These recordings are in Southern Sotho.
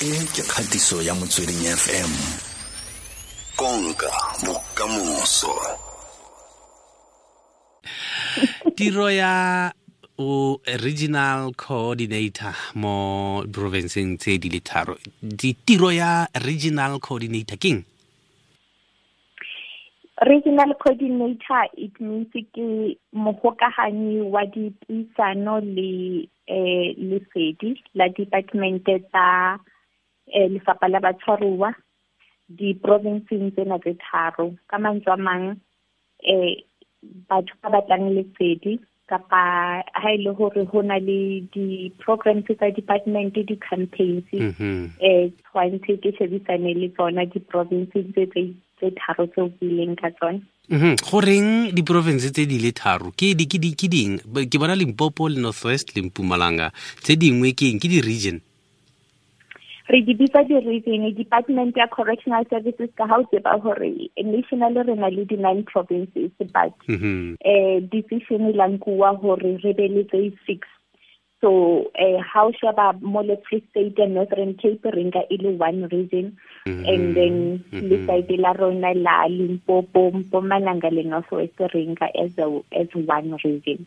E ke kgatiso ya Motsweding FM. Konka bokamoso. Tiro ya o regional coordinator mo provinceng tse di le tharo. Tiro ya regional coordinator keng? Regional coordinator, it means ke mogokaganyi wa dipuisano le lesedi la department tsa lefapha la batshwaruwa di-provinceng tsena tse tharo. Ka mantswe a mang, batho ba batlang lesedi kapa ha e le hore ho na le di-programs tsa department, di-campaigns, tshwantse ke shebisane le tsona di-provinces tse tharo tseo ke ileng ka tsona. Goreng di-province tse di le tharo? Ke di, ke di, ke ding? Ke bona Limpopo le North West le Mpumalanga. Tse dingwe ke eng? Ke di-region? Re di bitsa di-region. Department ya Correctional Services, ka ha o tseba hore nationally re na le di-9 provinces, but decision e la nkuwa hore re be le tse 6. So ha o sheba mo le Free State and Northern Cape re nka e le one region, and then le side la rona la Limpopo, Mpumalanga le North West re nka as one region.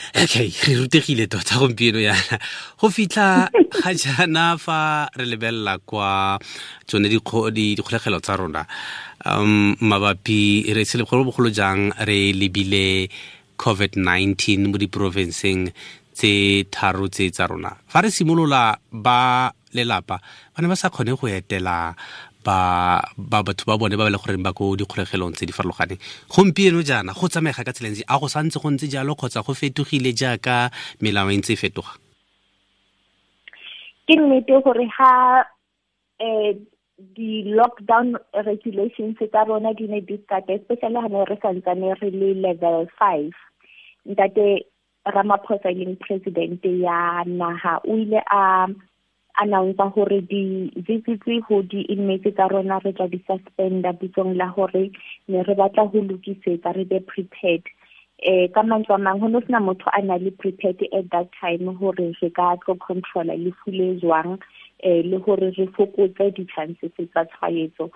Okay, re rutegile tota gompieno yana. Go fitlha ga jaana fa re lebelela kwa tsone dikgolegelo tsa rona, mabapi re se le bogolo jang re lebile COVID-19 mo diporofenseng tse tharo tse tsa rona. Fa re simolola ba lelapa ba ne ba sa kgone go etela ba batho ba bone ba ba le goreng ba ko dikgolegelong tse di farologaneng. Gompieno jaana go tsamaega ka tsela e ntsi, a go santse go ntse jalo kgotsa go fetogile jaaka melao e ntse e fetoga? Ke nnete gore ha di-lockdown regulations tsa rona di ne di start, especially ha ne re santsane re le level 5. Ntate Ramaphosa e leng president ya naha o ile a announce hore di-visits ho di-inmates tsa rona re tla di suspenda bitsong la hore ne re batla ho lokisetsa, re be prepared. Ka mantswe a mang, ho no sena motho a na le prepared at that time hore re ka tlo controla lefu le jwang, le hore re fokotse di-chances tsa tshwaetso.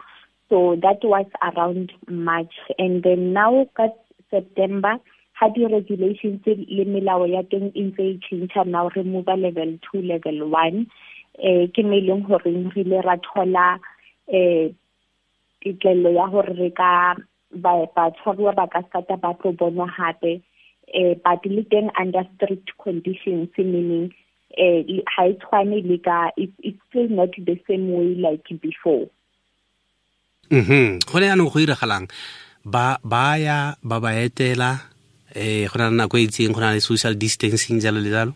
So that was around March, and then now ka September ha di-regulations le melao ya teng e ntse e tjhentjha, now re move level 2, level 1. Ke mo e leng hore re ile ra thola tetlello ya hore re ka batshwaruwa ba ka stata ba tlo bonwa hape, but le teng under strict conditions, meaning ha e tshwane le ka, it's still not the same way like before. Go ne jaanong go iragalang? Ba ya, ba ba etela, go na le nako e itseng, go na le social distancing jalo le jalo?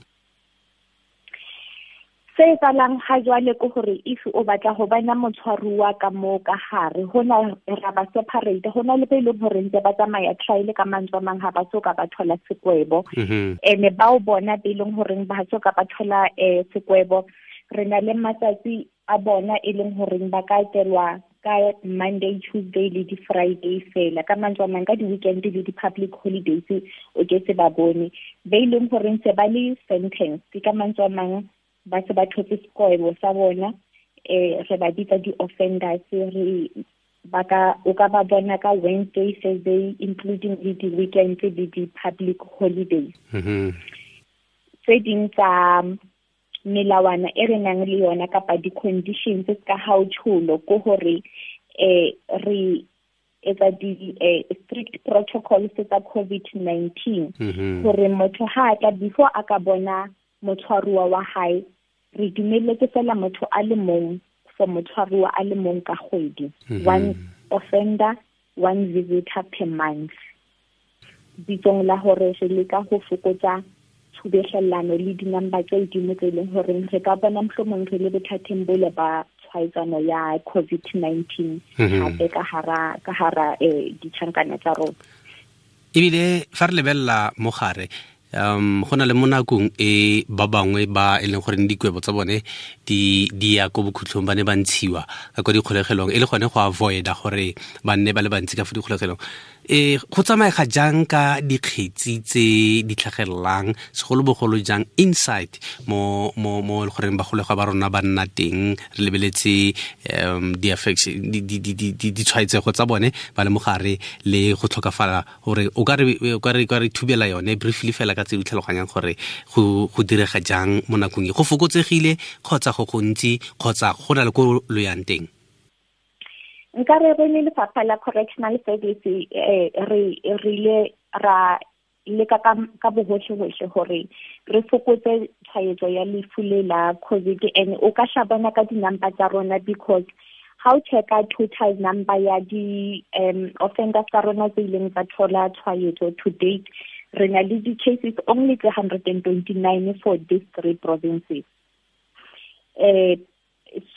Se etsahalang ha jwale ke hore if o batla ho bona motshwaruwa ka moo ka hare, hona ra ba separate, hona le be leng hore ntse ba tsamaya trial ka mantswe a mang, ha ba so ka ba thola sekwebo. Ene bao bona be leng hore ba so ka ba thola sekwebo, re na le matsatsi a bona e leng hore ba ka etelwa ka Monday, Tuesday le di-Friday fela. Ka mantswe a mang, ka di-weekend le di-public holidays o ke se ba bone. Be leng hore ntse ba le sentence, ka mantswe a mang ba se ba thotse sekwebo sa bona, re ba bitsa di-offenders, re ba ka, o ka ba bona ka Wednesday, Thursday, including le di-weekends le di-public holidays. Tse ding tsa melawana e re nang le yona kapa di-conditions ka ha o tjholo ke hore, re etsa di strict protocols tsa COVID-19, hore motho ha a tla before a ka bona motshwaruwa wa hae, re dumelletse fela motho a le mong for motshwaruwa a le mong ka kgwedi. One offender, one visitor per month. Bitsong la hore re leka ho fokotsa tshubehlellano le di-number tse hodimo tse leng hore re ka bona mohlomong re le bothateng bole ba tshwaetsano ya COVID-19 hape ka hara, ka hara ditjhankana tsa rona. Ebile fa re lebella mogare, go na le mo nakong e ba bangwe ba e leng gore dikwebo tsa bone di ya ko bokhutlong, ba ne ba ntshiwa ka kwa dikgolegelong e le gone go avoida gore ba nne ba le bantsi ka fo dikgolegelong. Go tsamaega jang ka dikgetsi tse di tlhagelelang, segolobogolo jang inside mo mo mo e goreng bagolegwa ba rona ba nna teng, re lebeletse ditshwaetsego tsa bone ba le mogare le go tlhokafala, gore o ka re thubela yone briefly fela ka tse di tlhaloganyang gore go direga jang mo nakong e, go fokotsegile kgotsa go gontsi kgotsa go na le ko lo yang teng? Nka re re le lefapha la correctional service re ile ra leka ka bohohle-hohle hore re fokotse tshwaetso ya lefu le la COVID. And o ka shabana ka di-number tsa rona, because ha o checka total number ya di offenders tsa rona tse ileng tsa thola tshwaetso to date, re na le di-cases only 329 for these three provinces.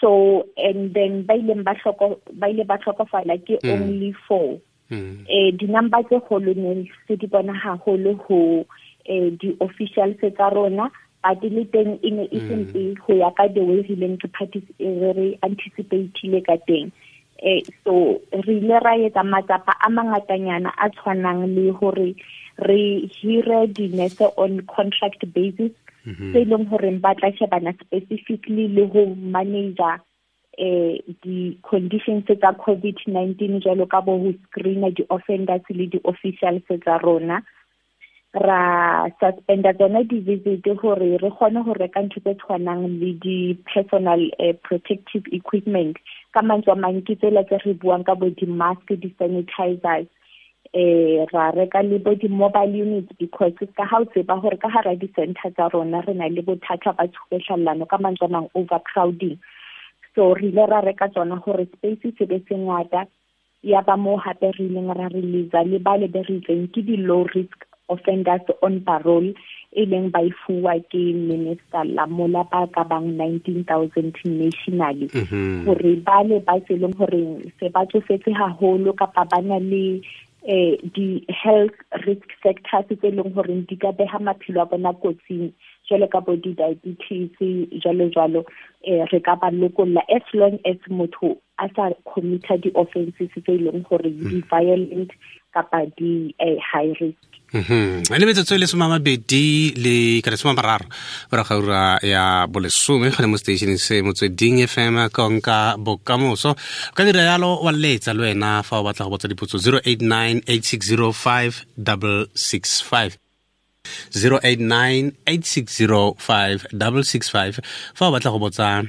So and then ba ile ba hlokofala ke only 4. Di-number tse kgolo ne se di bona haholo ho di-officials tsa rona, but le teng e ne e sempe ho ya ka the way re ileng re anticipate-ile ka teng. So re ile ra etsa matsapa a mangatanyana a tshwanang le hore re hire di-nurse on contract basis, tse leng hore ba tla shebana specifically le ho manager di-conditions tsa COVID-19, jwalo ka bo ho screena di-offenders le di-officials tsa rona. Ra suspenda tsona di-visit hore re kgone ho reka ntho tse tshwanang le di-personal protective equipment. Ka mantswe a mang ke tsela tse re buang ka bo di-mask, di-sanitizers, ra reka le bo di-mobile units, because ka ha o tseba hore ka hara di-center tsa rona re na le bothata ba tshubehlallano, ka mantswe a mang overcrowding. So re ile ra reka tsona hore space se be se ngata. Ya ba moo hape re ileng ra release le ba le be re itseng ke di-low risk offenders on parole, e leng ba e fuwa ke Minister Lamola ba ka bang 19,000 nationally, hore ba le ba se leng hore se ba tsofetse haholo kapa ba na le di-health risk factors tse leng hore di ka beha maphelo a bona kotsing, jwalo ka bo di-diabetes jwalo jwalo, re ka ba lokolla as long as motho a sa commit-a di-offences tse leng hore di-violent kapa di high risk. Le metsotso e le 20 le ka 30 morago ga ura ya 10 gone mo stationeng se Motsweding FM, konka bokamoso. O ka dira yalo wa letsa le wena fa o batla go botsa dipotso, 089 8605 665, 089 8605 665, fa o batla go botsa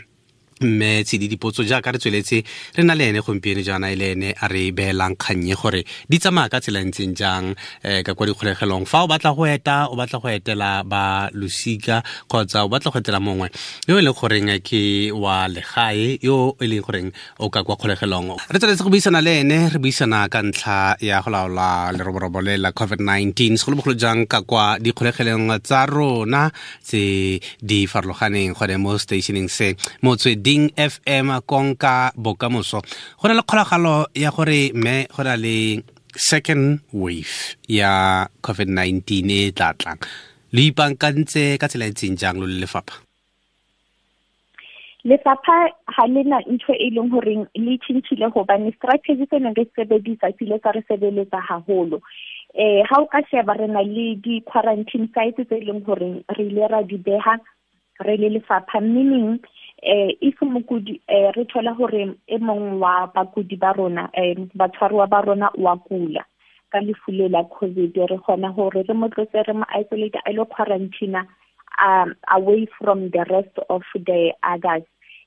mme Tshidi dipotso jaaka re tsweletse re na le ene gompieno jaana, e le ene a re beelang kgannye gore di tsamaya ka tsela e ntseng jang ka kwa dikgolegelong. Fa o batla go eta, o batla go etela ba losika kgotsa o batla go etela mongwe yo e leng goreng ke wa legae yo e leng goreng o ka kwa kgolegelong, re tsweletse go buisana le ene, re buisana ka ntlha ya go laola leroborobo le la COVID-19, segolobogolo jang ka kwa dikgolegelong tsa rona tse di farologaneng gone mo stationeng se Motsweding FM, konka bokamoso. Go na le kgolagalo ya gore mme go na le second wave ya COVID-19 e tla tlang, le ipaakantse ka tsela e ntseng jang lo le lefapha? Lefapha ha le na ntho e leng horeng le tjhentjhile, hobane strategy se neng re sebedisa se ile sa re sebeletsa haholo. Ha o ka sheba, re na le di-quarantine sites tse leng horeng re ile ra di beha re le lefapha, meaning if mokudi re thola hore e mong wa bakudi ba rona, batshwaruwa ba rona wa kula ka lefu le la COVID, re kgona hore re mo tlose, re mo isolate, a lo quarantine away from the rest of the others.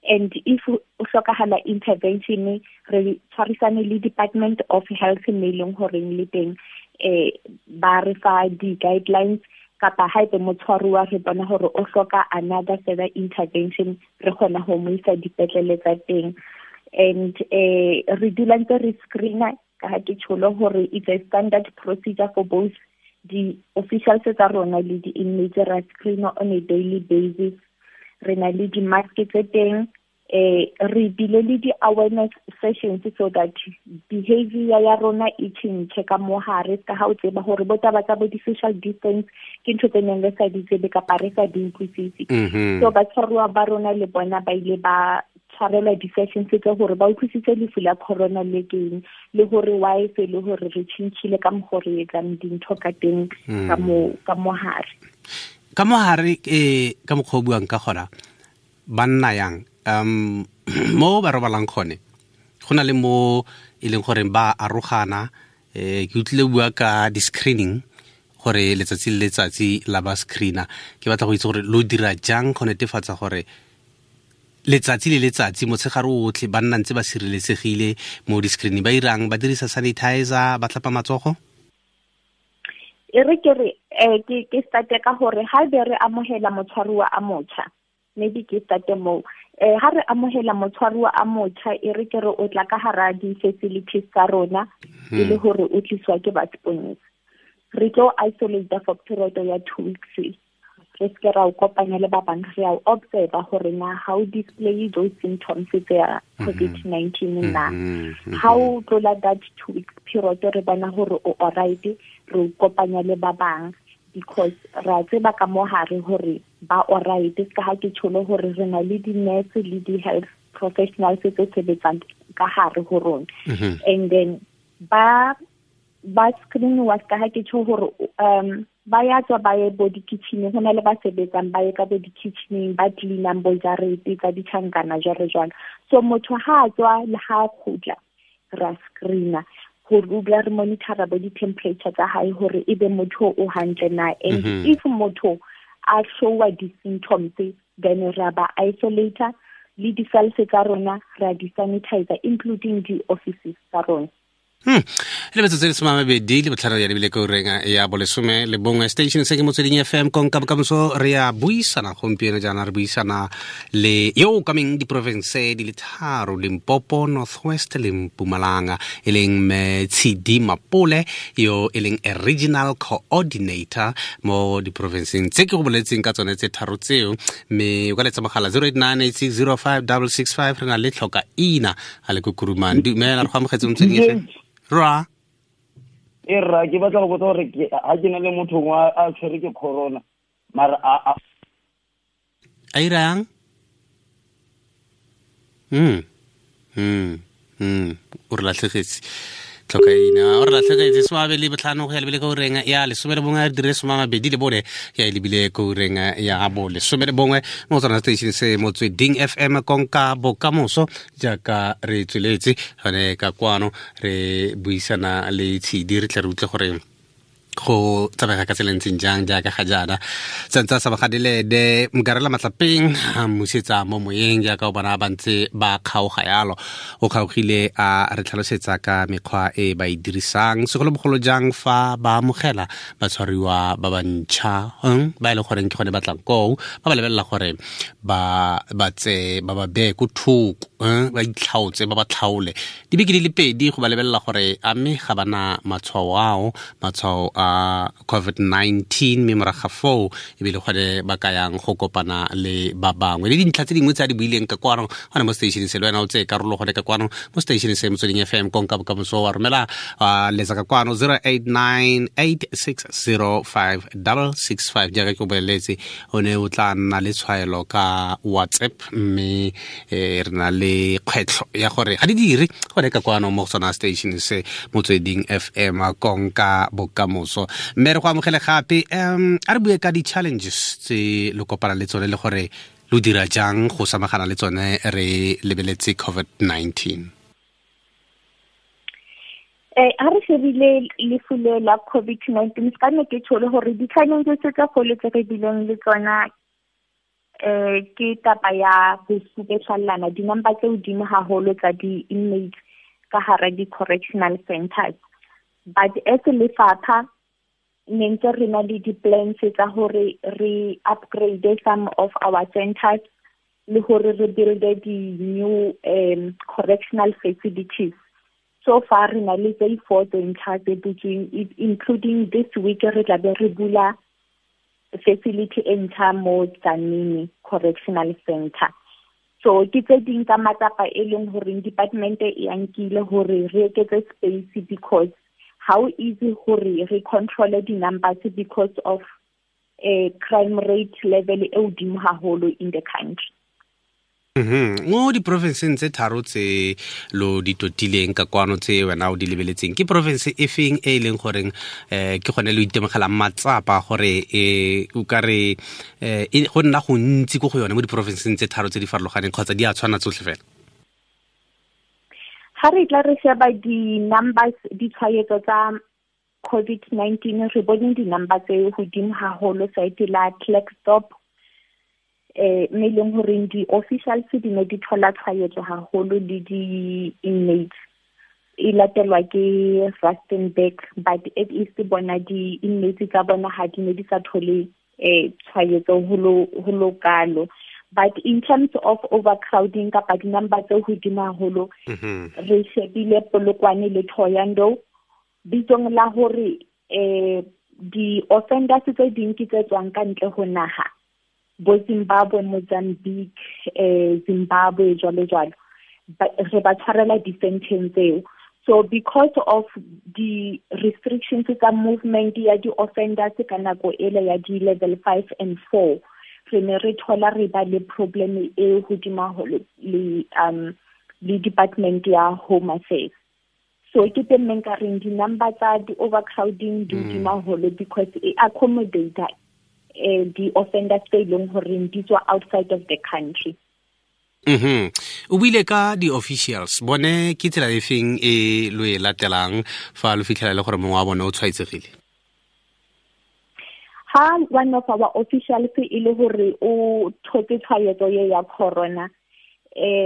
And if o hlokahala intervention, re tshwarisane le Department of Health, mme e leng horeng le teng ba re fa di-guidelines, kapa haebe motshwaruwa re bona hore o hloka another further intervention, re kgona ho mo isa dipetlele tsa teng. And re dula ntse re screena, ka ha ke tsholo hore it's a standard procedure for both the officials tsa rona le di-inmates, ra screena on a daily basis. Re na le di-mask tse teng, re bile le di-awareness sessions so that behavior ya rona e tjhentjhe ka mo hare, ka ha o tseba hore bo taba tsa bo di-social distance ke ntho tse neng re sa di tsebe kapa re sa di utlwisise. So batshwaruwa ba rona le bona ba ile ba Tshwarelwa di-sessions tse gore ba utlwisitse lefu la corona le keng, le gore why se le gore re tšhintšhile ka mokgo re etsang dintho ka teng ka mo hare. Ka mo hare, ka mokgwa o buang ka gona, ba nna yang mo ba robalang gone, go na le mo e leng gore ba arogana. Ke utlwile bua ka di-screening gore letsatsi le letsatsi la ba screena. Ke batla go itse gore lo dira jang go netefatsa gore letsatsi le letsatsi motshegare otlhe ba nna ntse ba sireletsegile mo di-screening. Ba irang, ba dirisa sanitizer, ba tlhapa matsogo? E re ke re ke starte ka gore ha be re amohela motshwaruwa a motjha, maybe ke starte moo. Ha re amohela motshwaruwa a motjha, e re ke re o tla ka hara di-facilities tsa rona, e le hore o tliswa ke ba seponesa. Re tlo isolate for period ya 2 weeks. Re se ra o kopanya le ba bang, re a o observe hore na how display those symptoms tsa COVID-19 na. Ha o tlola that 2 weeks period, re bona hore o alright, re o kopanya le ba bang, because ra tseba ka mo hare hore ba alright. Ka ha ke tsholo hore re na le di-nurse le di-health professionals tse sebetsang ka hare ho rona. And then ba screen wa ka ha ke tjho hore ba ya tswa ba ye bo di-kitchen, ho na le ba sebetsang ba ye ka bo di-kitchening, ba cleanang bo jarete tsa ditjhankana jwalo jwalo. So motho ha a tswa le ha a kgutla, ra screena hore o dula re monitora bo di-temperature tsa hae hore ebe motho o hantle na. And if motho a showa di-symptoms, then ra ba isolator le di-cells tsa rona ra di-sanitizer, including di-offices tsa rona. Le metsotso e 25 ya lebile ko reng ya bolesome le bongwe. Station se ke Motsweding FM, konka bokamoso. Re ya buisana gompieno jaana, re buisana le yo o kameng diporofense di le tharo, Limpopo, North West le Mpumalanga, e leng mme Tshidi Mapole, yo e leng a regional coordinator mo diporofenseng tse ke go boletseng ka tsone tse tharo tseo. Mme o ka letsa mogala 0898605665. Re na le tlhoka ina a le ko Kuruman. Dumela, re go amogetse Motsweding FM. Ra e ra ke batla go botsa gore ha ke na le motho wa a tshwere ke corona, mara a irang o re latlhegetse tlhoka ina, o re latlhegetse 25 go ya lebile ko reng ya 11, a dire 24 ya lebile ko reng ya bo 11 mo tsona station se Motsweding FM, konka bokamoso. Jaaka re tsweletse gone ka kwano re buisana le Tshidi, re tle re utlwe gore go tsamega ka tsela ntseng jang jaaka ga jaana. Santse a sa bagadile de Mkarela Matlapeng a mmusetsa mo moyeng, jaaka o bona ba ntse ba kgaoga yalo. O kgaogile a re tlhalosetsa ka mekgwa e ba e dirisang, segolobogolo jang fa ba amogela batshwariwa ba bantšha ba e leng goreng ke gone ba tlang koo, ba ba lebelela gore ba tse ba ba beye ko thoko, ba itlhaotse, ba ba tlhaole dibeke di le pedi go ba lebelela gore a mme ga bana matshwao ao, matshwao a COVID-19, mme morago ga foo ebile gone ba ka yang go kopana le ba bangwe. Le dintlha tse dingwe tse a di buileng ka kwano gone mo station se, le wena o tseye karolo gone ka kwano mo station se Motsweding FM, konka bokamoso. Wa romela letsa ka kwano 0898605665. Jaaka ke o boleletse, o ne o tla nna le tshwaelo ka WhatsApp, mme re na le kgwetlho ya gore ga di dire gone ka kwano mo go sona station se Motsweding FM, konka bokamoso. Mme re go amogele gape. A re bue ka di-challenges tse lo kopana le tsone le gore lo dira jang go samagana le tsone re lebeletse COVID-19. Ha re shebile lefu le la COVID-19, ka ne ke tsholo hore di-challenges tse kgolo tse re bileng le tsona ke taba ya ho supetlallana di-number tse hodimo haholo tsa di-inmates ka hara di-correctional centers. But as lefapha ne ntse re na le di-plans tsa hore re upgrade some of our centers le hore re build di-new correctional facilities. So far re na le tse 4 tse ntjha tse butsweng, including this week re tla be re bula facility e ntjha mo Tzaneen Correctional Center. So ke tse ding tsa matsapa e leng hore department e a nkile hore re eketse space, because how easy hore re control di-numbers because of a crime rate level e hodimo haholo in the country. Mo diporofenseng tse tharo tse lo di totileng ka kwano tse wena o di lebeletseng, ke porofense e feng e e leng goreng ke gone lo itemogelang matsapa gore o ka re go nna gontsi ko go yone mo diporofenseng tse tharo tse di farologaneng, kgotsa di a tshwana tsotlhe fela? Ga re tla re sheba di-numbers, ditshwaetso tsa COVID-19, re bone di-number tse godimo haholo site la Klerksdorp, mme leng horeng di-officials di ne di thola tshwaetso haholo le di-inmates, e latelwa ke Rustenburg, but at least bona di-inmates tsa bona ha di ne di sa thole tshwaetso ho lo kalo. But in terms of overcrowding kapa di-number tse hodimo haholo, re shebile Polokwane le Thohoyandou, bitsong la hore di-offenders tse ding ke tse tswang ka ntle ho naha, bo Zimbabwe, Mozambique, Zimbabwe jwalo jwalo, re ba tshwarela di-sentence tseo. So because of the restrictions tsa movement ya di-offenders ka nako ele ya di-level 5 and 4, re ne re thola re ba le problem e hodimo haholo le department ya Home Affairs. So ke teng mme nka reng di-number tsa di-overcrowding di hodimo haholo because e accommodate di-offenders tse e leng horeng di tswa outside of the country. O buile ka di-officials, bone ke tsela e feng e lo e latelang fa lo fitlhela le gore mongwe wa bone o tshwaetsegile? Ha one of our officials e le hore o thotse tshwaetso ye ya corona,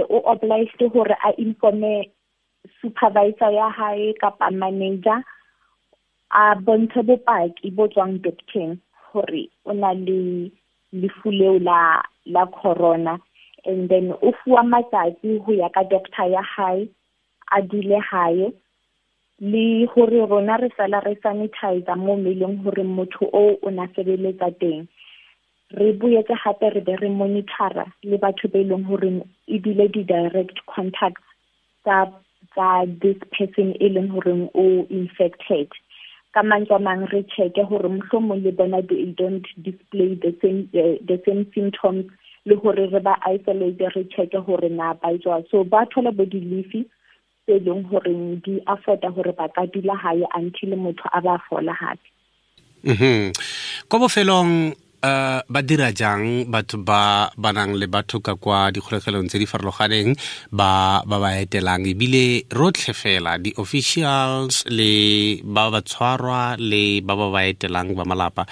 o obliged hore a informe supervisor ya hae kapa manager, a bontshe bopaki bo tswang doctor hore o na le lefu leo la corona, and then o fuwa matsatsi ho ya ka doctor ya hae, a dule hae, le hore rona re sala re sanitizer mo mmeleng hore motho o na sebeletsa teng. Re boetse hape re be re monitora le batho be leng hore ebile di-direct contacts tsa this person e leng hore o infected. Ka mantswe a mang re check-e hore mohlomong le bona they don't display the same symptoms, le hore re ba isolate, re check-e hore na ba etswa. So ba thola bo di-leave tse leng hore di afforda hore ba ka dula hae until motho a ba fola hape. Ko bofelong, ba dira jang batho ba ba nang le batho ka kwa dikgolegelong tse di farologaneng ba ba ba etelang, ebile rotlhe fela di-officials le ba ba tshwarwa le ba ba ba etelang ba malapa,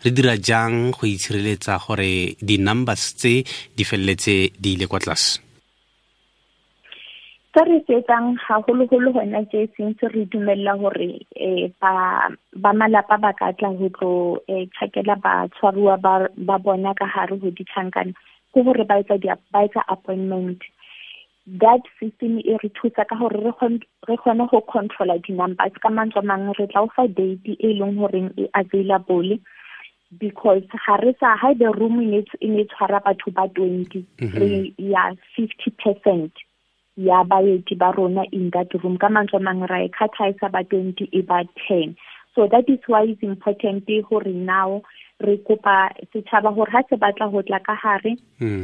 re dira jang go itshireletsa gore di-numbers tse di feleletse di ile kwa tlase? Se re se etsang haholoholo hona tje since re dumella hore ba malapa ba ka tla ho tlo tjhakela batshwaruwa ba bona ka hare ho ditjhankana, ke hore ba etsa ba etsa appointment. That system e re thusa ka hore re kgone ho controla di-numbers. Ka mantswe a mang re tla o fa date e leng horeng e available, because ha re sa, haebe room e ne tshwara batho ba 20, re ya 50% ya baeti ba rona in that room. Ka mantswe a mang ra e kgathaisa ba 20 e ba 10. So that is why it's important hore now re kopa setjhaba hore ha se batla ho tla ka hare,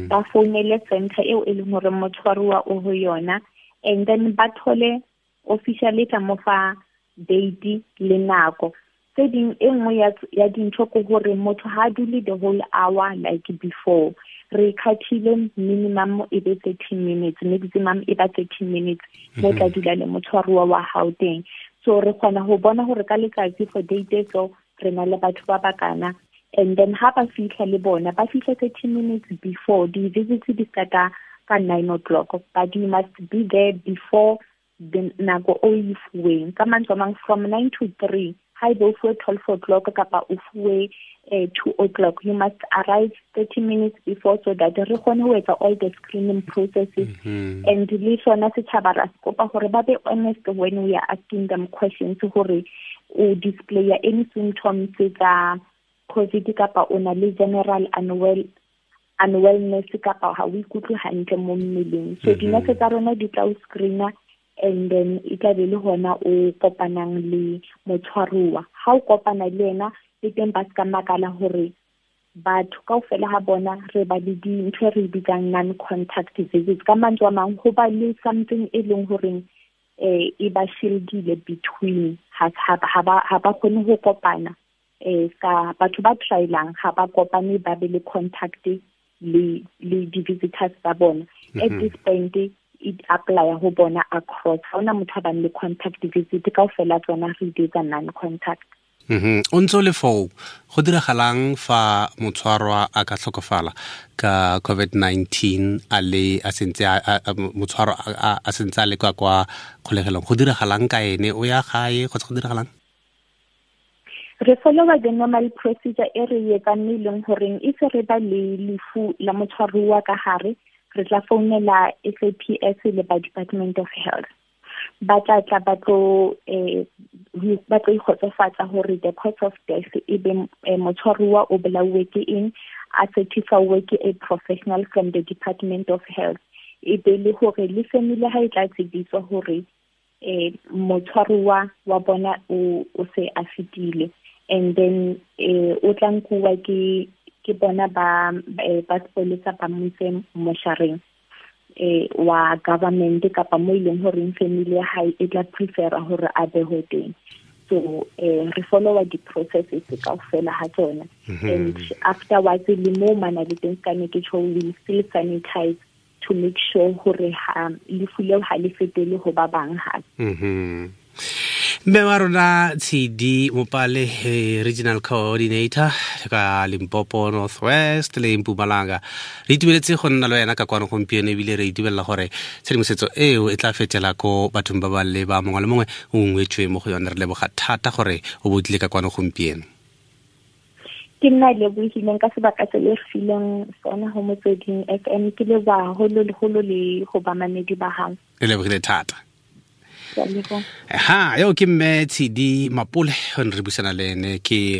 ba founele center eo e leng hore motshwaruwa o ho yona, and then ba thole officially tla mo fa date le nako. Tse ding e nngwe ya dintho ke hore motho ha dule the whole hour like before. Re khathile minimum e be 30 minutes, maximum e ba 30 minutes mo tla dula le motshwaruwa wa hao teng. So re kgona ho bona hore ka letsatsi for date so re na le batho ba bakana, and then ha ba fihla le bona ba fihla 30 minutes before the visits di starta ka 9 o'clock, but you must be there before the nako o e fuweng. Ka mantswe a mang from 9 to 3, ha ebe o fuwe 12 o'clock kapa o fuwe 2 o'clock, you must arrive 30 minutes before so that re kgone ho etsa all the screening processes. And le sona setjhaba ra se kopa hore ba be honest when we are asking them questions, hore o display any symptoms tsa COVID kapa o na le general unwellness kapa ha o ikutlwe hantle mo mmeleng. So dinese tsa rona di tla o screena, and then e tla be le hona o kopanang le motshwaruwa. Ha o kopana le yena, le teng ba ska makala hore Batho kaofela ha bona re ba le dintho e re bitsang non-contact visits. Ka mantswe a mang, ho ba le something e leng horeng e ba shieldile between, ha ba kgone ho kopana. Ka batho ba trialang ha ba kopane, ba be le contact le di-visitors tsa bona. At this point it apply ho bona across. Ha hona motho a bang le contact visit, kaofela tsona re di etsa non-contact. O ntse o le foo, go diragalang fa motshwarwa a ka tlhokofala ka COVID-19 a le a sentse motshwarwa a sentse a le kwa kwa kgolegelong, go diragalang ka ene, o ya gae kgotsa go diragalang? Re followa the normal procedure e re etsang, e leng horeng e se re ba le lefu la motshwaruwa ka hare, re tla founela SAPS le ba Department of Health. Ba tla tla ba tlo ikgotsofatsa hore the cause of death e be motshwaruwa o bolauwe ke eng, a certify ke a professional from the Department of Health. E be le hore le family ha e tla tsebiswa hore motshwaruwa wa bona o se a fetile, and then o tla nkuwa ke bona ba sepolesa ba mo ise moshareng wa government kapa mo ileng horeng family ya hae e tla prefera hore a behwe teng. So re followa di-processes kaofela ha tsona. And afterwards le mo mana le teng ka ne ke tjho, we still sanitize to make sure hore ha lefu leo ha le fetele ho ba bang hape. Mme wa rona Tshidi Mopale, regional coordinator ka Limpopo Northwest le Mpumalanga, re itumeletse go nna le wena ka kwano gompieno, ebile re itumelela gore tshedimosetso eo e tla fetela ko bathong ba ba le ba mongwe le mongwe o ngwetswe mo go yone. Re leboga thata gore o botlile ka kwano gompieno. Ke nna lebohileng ka sebaka se le fileng sona ho Motsweding FM. Ke leboha haholo le ho bamamedi ba hao. Re lebogile thata. Ha yo ke mme Tshidi Mapole, re buisana le ene ke